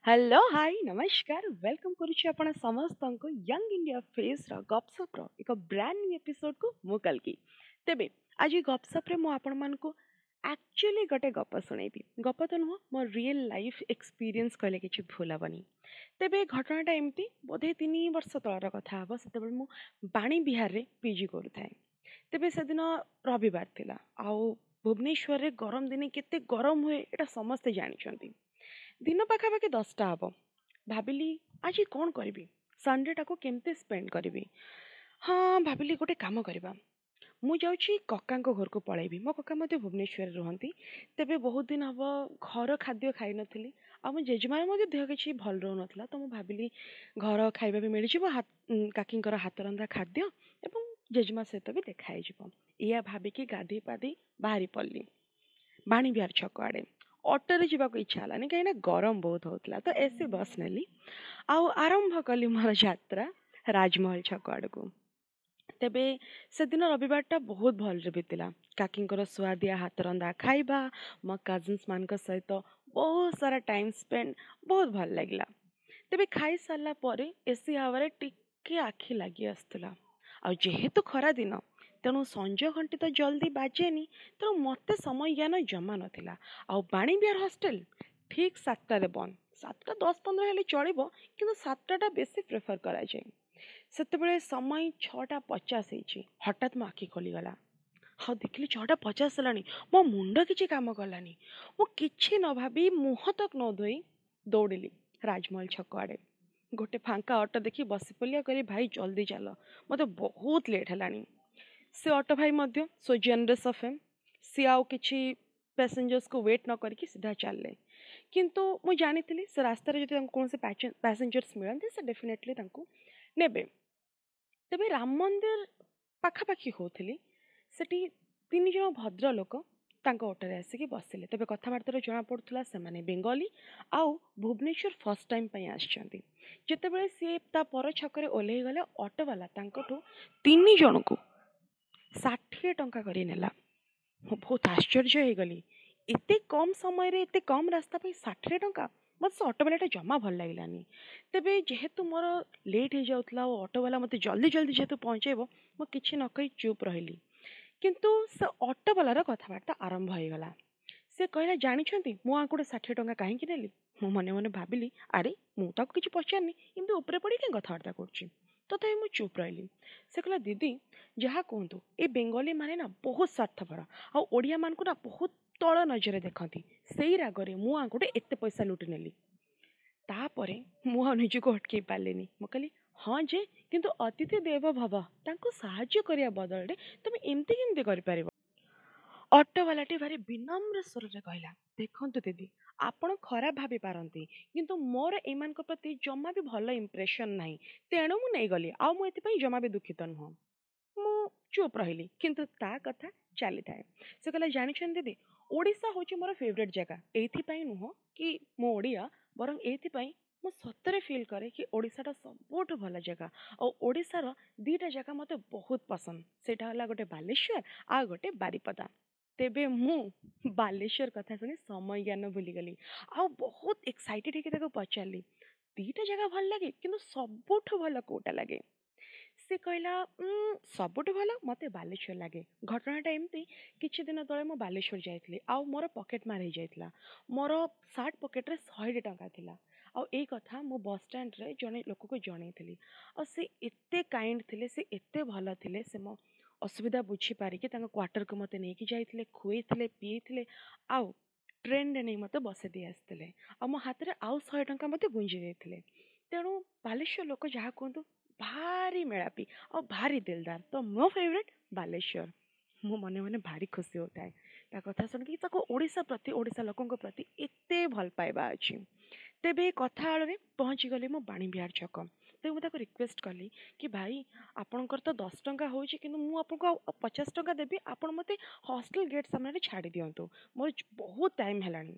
Hello, high, ନମସ୍କାର। Welcome କରୁଛି ଆପଣ ସମସ୍ତଙ୍କୁ ୟଙ୍ଗ ଇଣ୍ଡିଆ ଫେସ୍ର ଗପସପ୍ର ଏକ ବ୍ରାଣ୍ଡ ନ୍ୟୁ ଏପିସୋଡ଼କୁ। ମୁଁ କଲ୍କି। ତେବେ ଆଜି ଗପସପ୍ରେ ମୁଁ ଆପଣମାନଙ୍କୁ ଆକ୍ଚୁଆଲି ଗୋଟେ ଗପ ଶୁଣେଇବି। ଗପ ତ ନୁହଁ, ମୋ ରିଏଲ୍ ଲାଇଫ୍ ଏକ୍ସପିରିଏନ୍ସ କହିଲେ କିଛି ଭୁଲ ହେବନି। ତେବେ ଘଟଣାଟା ଏମିତି, ବୋଧେ 3 ବର୍ଷ ତଳର କଥା ହେବ। ସେତେବେଳେ ମୁଁ ବାଣୀ ବିହାରରେ ପିଜି କରୁଥାଏ। ତେବେ ସେଦିନ ରବିବାର ଥିଲା ଆଉ ଭୁବନେଶ୍ୱରରେ ଗରମ ଦିନେ କେତେ ଗରମ ହୁଏ, ଏଇଟା ସମସ୍ତେ ଜାଣିଛନ୍ତି। ଦିନ ପାଖାପାଖି 10ଟା ହେବ। ଭାବିଲି, ଆଜି କ'ଣ କରିବି? ସଣ୍ଡେଟାକୁ କେମିତି ସ୍ପେଣ୍ଡ କରିବି? ହଁ, ଭାବିଲି ଗୋଟେ କାମ କରିବା, ମୁଁ ଯାଉଛି କକାଙ୍କ ଘରକୁ ପଳେଇବି। ମୋ କକା ମଧ୍ୟ ଭୁବନେଶ୍ୱରରେ ରୁହନ୍ତି। ତେବେ ବହୁତ ଦିନ ହେବ ଘର ଖାଦ୍ୟ ଖାଇନଥିଲି ଆଉ ମୋ ଜେଜେମାର ମଧ୍ୟ ଦେହ କିଛି ଭଲ ରହୁନଥିଲା। ତ ମୁଁ ଭାବିଲି ଘର ଖାଇବା ବି ମିଳିଯିବ, କାକିଙ୍କର ହାତ ରନ୍ଧା ଖାଦ୍ୟ, ଏବଂ ଜେଜେମା ସହିତ ବି ଦେଖା ହେଇଯିବ। ଏଇଆ ଭାବିକି ଗାଧେଇ ପାଧେଇ ବାହାରି ପଡ଼ିଲି ବାଣୀବିହାର ଛକ ଆଡ଼େ। ଅଟୋରେ ଯିବାକୁ ଇଚ୍ଛା ହେଲାନି, କାହିଁକିନା ଗରମ ବହୁତ ହେଉଥିଲା। ତ ଏସି ବସ୍ ନେଲି ଆଉ ଆରମ୍ଭ କଲି ମୋର ଯାତ୍ରା ରାଜମହଲ ଛକ ଆଡ଼କୁ। ତେବେ ସେଦିନ ରବିବାରଟା ବହୁତ ଭଲରେ ବିତିଲା। କାକିଙ୍କର ସୁଆଦିଆ ହାତରନ୍ଧା ଖାଇବା, ମୋ କଜିନ୍ସମାନଙ୍କ ସହିତ ବହୁତ ସାରା ଟାଇମ୍ ସ୍ପେଣ୍ଡ, ବହୁତ ଭଲ ଲାଗିଲା। ତେବେ ଖାଇସାରିଲା ପରେ ଏସି ହାୱାରେ ଟିକେ ଆଖି ଲାଗି ଆସୁଥିଲା। ଆଉ ଯେହେତୁ ଖରା ଦିନ, ତେଣୁ ସଞ୍ଜ ଘଣ୍ଟି ତ ଜଲ୍ଦି ବାଜେନି। ତେଣୁ ମୋତେ ସମୟ ଜ୍ଞାନ ଜମା ନଥିଲା। ଆଉ ବାଣୀବିହାର ହଷ୍ଟେଲ ଠିକ୍ 7ଟାରେ ବନ୍ଦ। 7ଟା 10-15 ହେଲେ ଚଳିବ, କିନ୍ତୁ 7ଟା ବେଶୀ ପ୍ରିଫର୍ କରାଯାଏ। ସେତେବେଳେ ସମୟ 6ଟା 50 ହେଇଛି। ହଠାତ୍ ମୋ ଆଖି ଖୋଲିଗଲା ଆଉ ଦେଖିଲି 6ଟା 50 ହେଲାଣି। ମୋ ମୁଣ୍ଡ କିଛି କାମ କଲାନି। ମୁଁ କିଛି ନ ଭାବି, ମୁହଁ ତକ ନ ଧୋଇ ଦୌଡ଼ିଲି ରାଜମହଲ ଛକ ଆଡ଼େ। ଗୋଟେ ଫାଙ୍କା ଅଟୋ ଦେଖି ବସି ପଡ଼ିଲି ଆଉ କହିଲି, "ଭାଇ, ଜଲ୍ଦି ଚାଲ, ମୋତେ ବହୁତ ଲେଟ୍ ହେଲାଣି।" ସେ ଅଟୋ ଭାଇ ମଧ୍ୟ ସୋ ଜେନରସ୍ ଅଫ୍ ହିମ୍, ସିଏ ଆଉ କିଛି ପ୍ୟାସେଞ୍ଜର୍ସକୁ ୱେଟ୍ ନ କରିକି ସିଧା ଚାଲିଲେ। କିନ୍ତୁ ମୁଁ ଜାଣିଥିଲି, ସେ ରାସ୍ତାରେ ଯଦି ତାଙ୍କୁ କୌଣସି ପ୍ୟାସେଞ୍ଜର୍ସ ମିଳନ୍ତି, ସେ ଡେଫିନେଟଲି ତାଙ୍କୁ ନେବେ। ତେବେ ରାମ ମନ୍ଦିର ପାଖାପାଖି ହେଉଥିଲି, ସେଠି ତିନି ଜଣ ଭଦ୍ରଲୋକ ତାଙ୍କ ଅଟୋରେ ଆସିକି ବସିଲେ। ତେବେ କଥାବାର୍ତ୍ତାରୁ ଜଣାପଡ଼ୁଥିଲା, ସେମାନେ ବେଙ୍ଗଲୀ ଆଉ ଭୁବନେଶ୍ୱର ଫାର୍ଷ୍ଟ ଟାଇମ୍ ପାଇଁ ଆସିଛନ୍ତି। ଯେତେବେଳେ ସିଏ ତା ପର ଛକରେ ଓହ୍ଲେଇ ଗଲେ, ଅଟୋବାଲା ତାଙ୍କଠୁ ତିନି ଜଣଙ୍କୁ 60 ଟଙ୍କା କରି ନେଲା। ମୁଁ ବହୁତ ଆଶ୍ଚର୍ଯ୍ୟ ହେଇଗଲି। ଏତେ କମ୍ ସମୟରେ ଏତେ କମ୍ ରାସ୍ତା ପାଇଁ 60 ଟଙ୍କା! ମୋତେ ସେ ଅଟୋବାଲାଟା ଜମା ଭଲ ଲାଗିଲାନି। ତେବେ ଯେହେତୁ ମୋର ଲେଟ୍ ହେଇଯାଉଥିଲା ଆଉ ଅଟୋବାଲା ମୋତେ ଜଲ୍ଦି ଜଲ୍ଦି ଯେହେତୁ ପହଞ୍ଚେଇବ, ମୁଁ କିଛି ନ କହି ଚୁପ୍ ରହିଲି। କିନ୍ତୁ ସେ ଅଟୋବାଲାର କଥାବାର୍ତ୍ତା ଆରମ୍ଭ ହେଇଗଲା। ସେ କହିଲା, "ଜାଣିଛନ୍ତି, ମୁଁ ଆଙ୍କଠୁ 60 ଟଙ୍କା କାହିଁକି ନେଲି?" ମୁଁ ମନେ ମନେ ଭାବିଲି, ଆରେ, ମୁଁ ତାକୁ କିଛି ପଚାରିନି, ଏମିତି ଉପରେ ପଡ଼ି କାହିଁ କଥାବାର୍ତ୍ତା କରୁଛି? ତଥାପି ମୁଁ ଚୁପ୍ ରହିଲି। ସେ କହିଲା, "ଦିଦି, ଯାହା କୁହନ୍ତୁ, ଏ ବେଙ୍ଗଲୀ ମାନେ ନା ବହୁତ ସ୍ୱାର୍ଥପର ଆଉ ଓଡ଼ିଆମାନଙ୍କୁ ନା ବହୁତ ତଳ ନଜରରେ ଦେଖନ୍ତି। ସେଇ ରାଗରେ ମୁଁ ଆଙ୍କଠୁ ଏତେ ପଇସା ଲୁଟି ନେଲି।" ତାପରେ ମୁଁ ଆଉ ନିଜକୁ ଅଟକେଇ ପାରିଲିନି। ମୁଁ କହିଲି, "ହଁ ଯେ, କିନ୍ତୁ ଅତିଥି ଦେବ ଭବ, ତାଙ୍କୁ ସାହାଯ୍ୟ କରିବା ବଦଳରେ ତୁମେ ଏମିତି କେମିତି କରିପାରିବ?" ଅଟୋବାଲାଟି ଭାରି ବିନମ୍ର ସ୍ୱରରେ କହିଲା, "ଦେଖନ୍ତୁ ଦିଦି, ଆପଣ ଖରାପ ଭାବି ପାରନ୍ତି, କିନ୍ତୁ ମୋର ଏମାନଙ୍କ ପ୍ରତି ଜମା ବି ଭଲ ଇମ୍ପ୍ରେସନ୍ ନାହିଁ। ତେଣୁ ମୁଁ ନେଇଗଲି ଆଉ ମୁଁ ଏଥିପାଇଁ ଜମା ବି ଦୁଃଖିତ ନୁହଁ।" ମୁଁ ଚୁପ୍ ରହିଲି, କିନ୍ତୁ ତା କଥା ଚାଲିଥାଏ। ସେ କହିଲା, "ଜାଣିଛନ୍ତି ଦିଦି, ଓଡ଼ିଶା ହେଉଛି ମୋର ଫେଭରେଟ୍ ଜାଗା। ଏଇଥିପାଇଁ ନୁହଁ କି ମୁଁ ଓଡ଼ିଆ, ବରଂ ଏଇଥିପାଇଁ ମୁଁ ସତରେ ଫିଲ୍ କରେ କି ଓଡ଼ିଶାଟା ସବୁଠୁ ଭଲ ଜାଗା। ଆଉ ଓଡ଼ିଶାର ଦୁଇଟା ଜାଗା ମୋତେ ବହୁତ ପସନ୍ଦ। ସେଇଟା ହେଲା ଗୋଟେ ବାଲେଶ୍ୱର ଆଉ ଗୋଟେ ବାରିପଦା।" ତେବେ ମୁଁ ବାଲେଶ୍ୱର କଥା ଶୁଣି ସମୟ ଜ୍ଞାନ ଭୁଲିଗଲି ଆଉ ବହୁତ ଏକ୍ସାଇଟେଡ଼ ହେଇକି ତାକୁ ପଚାରିଲି, "ଦୁଇଟା ଜାଗା ଭଲ ଲାଗେ, କିନ୍ତୁ ସବୁଠୁ ଭଲ କେଉଁଟା ଲାଗେ?" ସେ କହିଲା, "ସବୁଠୁ ଭଲ ମୋତେ ବାଲେଶ୍ୱର ଲାଗେ। ଘଟଣାଟା ଏମିତି, କିଛି ଦିନ ତଳେ ମୁଁ ବାଲେଶ୍ୱର ଯାଇଥିଲି ଆଉ ମୋର ପକେଟ୍ ମାର ହେଇଯାଇଥିଲା। ମୋର ସାର୍ଟ ପକେଟ୍ରେ 100ଟି ଟଙ୍କା ଥିଲା ଆଉ ଏଇ କଥା ମୁଁ ବସ୍ ଷ୍ଟାଣ୍ଡରେ ଜଣେ ଲୋକକୁ ଜଣେଇଥିଲି। ଆଉ ସେ ଏତେ କାଇଣ୍ଡ ଥିଲେ, ସେ ଏତେ ଭଲ ଥିଲେ, ସେ ମୋ ଅସୁବିଧା ବୁଝିପାରିକି ତାଙ୍କ କ୍ୱାର୍ଟରକୁ ମୋତେ ନେଇକି ଯାଇଥିଲେ, ଖୁଏଇଥିଲେ, ପିଏଇଥିଲେ ଆଉ ଟ୍ରେନରେ ନେଇ ମୋତେ ବସେଇ ଦେଇ ଆସିଥିଲେ ଆଉ ମୋ ହାତରେ ଆଉ 100 ଟଙ୍କା ମୋତେ ଗୁଞ୍ଜି ଦେଇଥିଲେ। ତେଣୁ ବାଲେଶ୍ୱର ଲୋକ ଯାହା କୁହନ୍ତୁ, ଭାରି ମେଳାପି ଆଉ ଭାରି ଦିଲଦାର। ତ ମୋ ଫେଭରେଟ୍ ବାଲେଶ୍ୱର।" ମୁଁ ମନେ ମନେ ଭାରି ଖୁସି ହେଉଥାଏ ତା କଥା ଶୁଣିକି, ତାକୁ ଓଡ଼ିଶା ପ୍ରତି, ଓଡ଼ିଶା ଲୋକଙ୍କ ପ୍ରତି ଏତେ ଭଲ ପାଇବା ଅଛି। ତେବେ କଥା ଆଳରେ ପହଞ୍ଚିଗଲି ମୁଁ ବାଣୀବିହାର ଛକ। ତେବେ ମୁଁ ତାକୁ ରିକ୍ୱେଷ୍ଟ କଲି କି, "ଭାଇ, ଆପଣଙ୍କର ତ 10 ଟଙ୍କା ହେଉଛି, କିନ୍ତୁ ମୁଁ ଆପଣଙ୍କୁ ଆଉ 50 ଟଙ୍କା ଦେବି। ଆପଣ ମୋତେ ହଷ୍ଟେଲ ଗେଟ୍ ସାମ୍ନାରେ ଛାଡ଼ି ଦିଅନ୍ତୁ, ମୋର ବହୁତ ଟାଇମ୍ ହେଲାଣି।"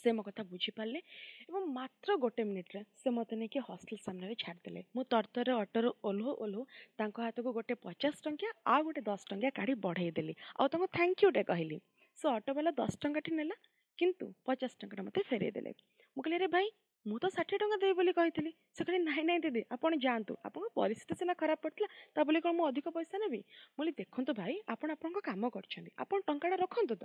ସେ ମୋ କଥା ବୁଝିପାରିଲେ ଏବଂ ମାତ୍ର ଗୋଟେ ମିନିଟ୍ରେ ସେ ମୋତେ ନେଇକି ହଷ୍ଟେଲ ସାମ୍ନାରେ ଛାଡ଼ିଦେଲେ। ମୁଁ ତରତରରେ ଅଟୋରୁ ଓହ୍ଲଉ ଓହ୍ଲଉ ତାଙ୍କ ହାତକୁ ଗୋଟେ 50 ଟଙ୍କିଆ ଆଉ ଗୋଟେ 10 ଟଙ୍କିଆ କାଢ଼ି ବଢ଼େଇ ଦେଲି ଆଉ ତାଙ୍କୁ thank ୟୁଟେ କହିଲି। ସେ ଅଟୋବାଲା 10 ଟଙ୍କାଟି ନେଲା, କିନ୍ତୁ 50 ଟଙ୍କାଟା ମୋତେ ଫେରେଇ ଦେଲେ। ମୁଁ କହିଲି, "ଆରେ ଭାଇ ମୁଁ ତ 60 ଟଙ୍କା ଦେବି ବୋଲି କହିଥିଲି। ସେ କହିଲେ, ନାଇଁ ନାଇଁ ଦିଦି, ଆପଣ ଯାଆନ୍ତୁ, ଆପଣଙ୍କ ପରିସ୍ଥିତି ସିନା ଖରାପ ପଡ଼ିଥିଲା, ତା ବୋଲି କ'ଣ ମୁଁ ଅଧିକ ପଇସା ନେବି? ମୁଁ କହିଲି, ଦେଖନ୍ତୁ ଭାଇ, ଆପଣ ଆପଣଙ୍କ କାମ କରିଛନ୍ତି, ଆପଣ ଟଙ୍କାଟା ରଖନ୍ତୁ ତ।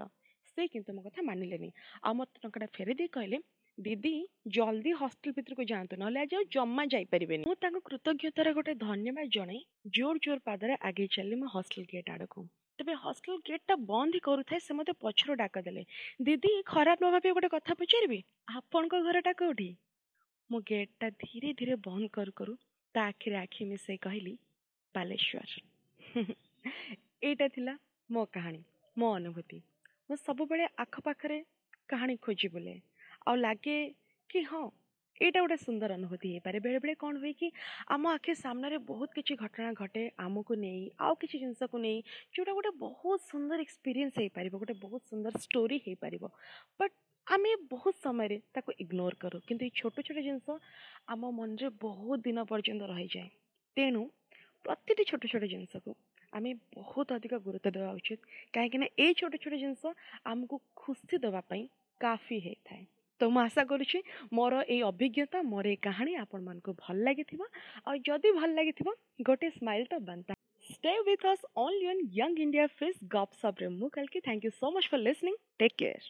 ସେ କିନ୍ତୁ ମୋ କଥା ମାନିଲେନି ଆଉ ମୋତେ ଟଙ୍କାଟା ଫେରେଇ ଦେଇ କହିଲେ, ଦିଦି, ଜଲ୍ଦି ହଷ୍ଟେଲ ଭିତରକୁ ଯାଆନ୍ତୁ, ନହେଲେ ଆଜି ଆଉ ଜମା ଯାଇପାରିବେନି। ମୁଁ ତାଙ୍କୁ କୃତଜ୍ଞତାର ଗୋଟେ ଧନ୍ୟବାଦ ଜଣାଇ ଜୋର ଜୋର ପାଦରେ ଆଗେଇ ଚାଲିଲି ମୋ ହଷ୍ଟେଲ ଗେଟ୍ ଆଡ଼କୁ। ତେବେ ହଷ୍ଟେଲ ଗେଟ୍ଟା ବନ୍ଦ ହିଁ କରୁଥାଏ, ସେ ମୋତେ ପଛରୁ ଡାକ ଦେଲେ, ଦିଦି, ଖରାପ ନ ଭାବି ଗୋଟେ କଥା ପଚାରିବି, ଆପଣଙ୍କ ଘରଟା କେଉଁଠି? ମୁଁ ଗେଟ୍ଟା ଧୀରେ ଧୀରେ ବନ୍ଦ କରୁ କରୁ ତା ଆଖିରେ ଆଖି ମିଶାଇ କହିଲି, ବାଲେଶ୍ୱର। ଏଇଟା ଥିଲା ମୋ କାହାଣୀ, ମୋ ଅନୁଭୂତି। ମୁଁ ସବୁବେଳେ ଆଖପାଖରେ କାହାଣୀ ଖୋଜି ବୁଲେ ଆଉ ଲାଗେ କି ହଁ, ଏଇଟା ଗୋଟେ ସୁନ୍ଦର ଅନୁଭୂତି ହେଇପାରେ। ବେଳେବେଳେ କ'ଣ ହୁଏ କି ଆମ ଆଖି ସାମ୍ନାରେ ବହୁତ କିଛି ଘଟଣା ଘଟେ ଆମକୁ ନେଇ ଆଉ କିଛି ଜିନିଷକୁ ନେଇ, ଯେଉଁଟା ଗୋଟେ ବହୁତ ସୁନ୍ଦର ଏକ୍ସପିରିଏନ୍ସ ହେଇପାରିବ, ଗୋଟେ ବହୁତ ସୁନ୍ଦର ଷ୍ଟୋରି ହେଇପାରିବ, ବଟ୍ ଆମେ ବହୁତ ସମୟରେ ତାକୁ ଇଗ୍ନୋର କରୁ। କିନ୍ତୁ ଏଇ ଛୋଟ ଛୋଟ ଜିନିଷ ଆମ ମନରେ ବହୁତ ଦିନ ପର୍ଯ୍ୟନ୍ତ ରହିଯାଏ। ତେଣୁ ପ୍ରତିଟି ଛୋଟ ଛୋଟ ଜିନିଷକୁ ଆମେ ବହୁତ ଅଧିକ ଗୁରୁତ୍ୱ ଦେବା ଉଚିତ, କାହିଁକିନା ଏଇ ଛୋଟ ଛୋଟ ଜିନିଷ ଆମକୁ ଖୁସି ଦେବା ପାଇଁ କାଫି ହେଇଥାଏ। ତ ମୁଁ ଆଶା କରୁଛି ମୋର ଏଇ ଅଭିଜ୍ଞତା, ମୋର ଏଇ କାହାଣୀ ଆପଣମାନଙ୍କୁ ଭଲ ଲାଗିଥିବ, ଆଉ ଯଦି ଭଲ ଲାଗିଥିବ ଗୋଟେ ସ୍ମାଇଲ୍ ତ ବନତା। Stay with us only on Young India Face ଗପସପ୍ରେ ମୁଁ କାଲକି। Thank you so much for listening. Take care.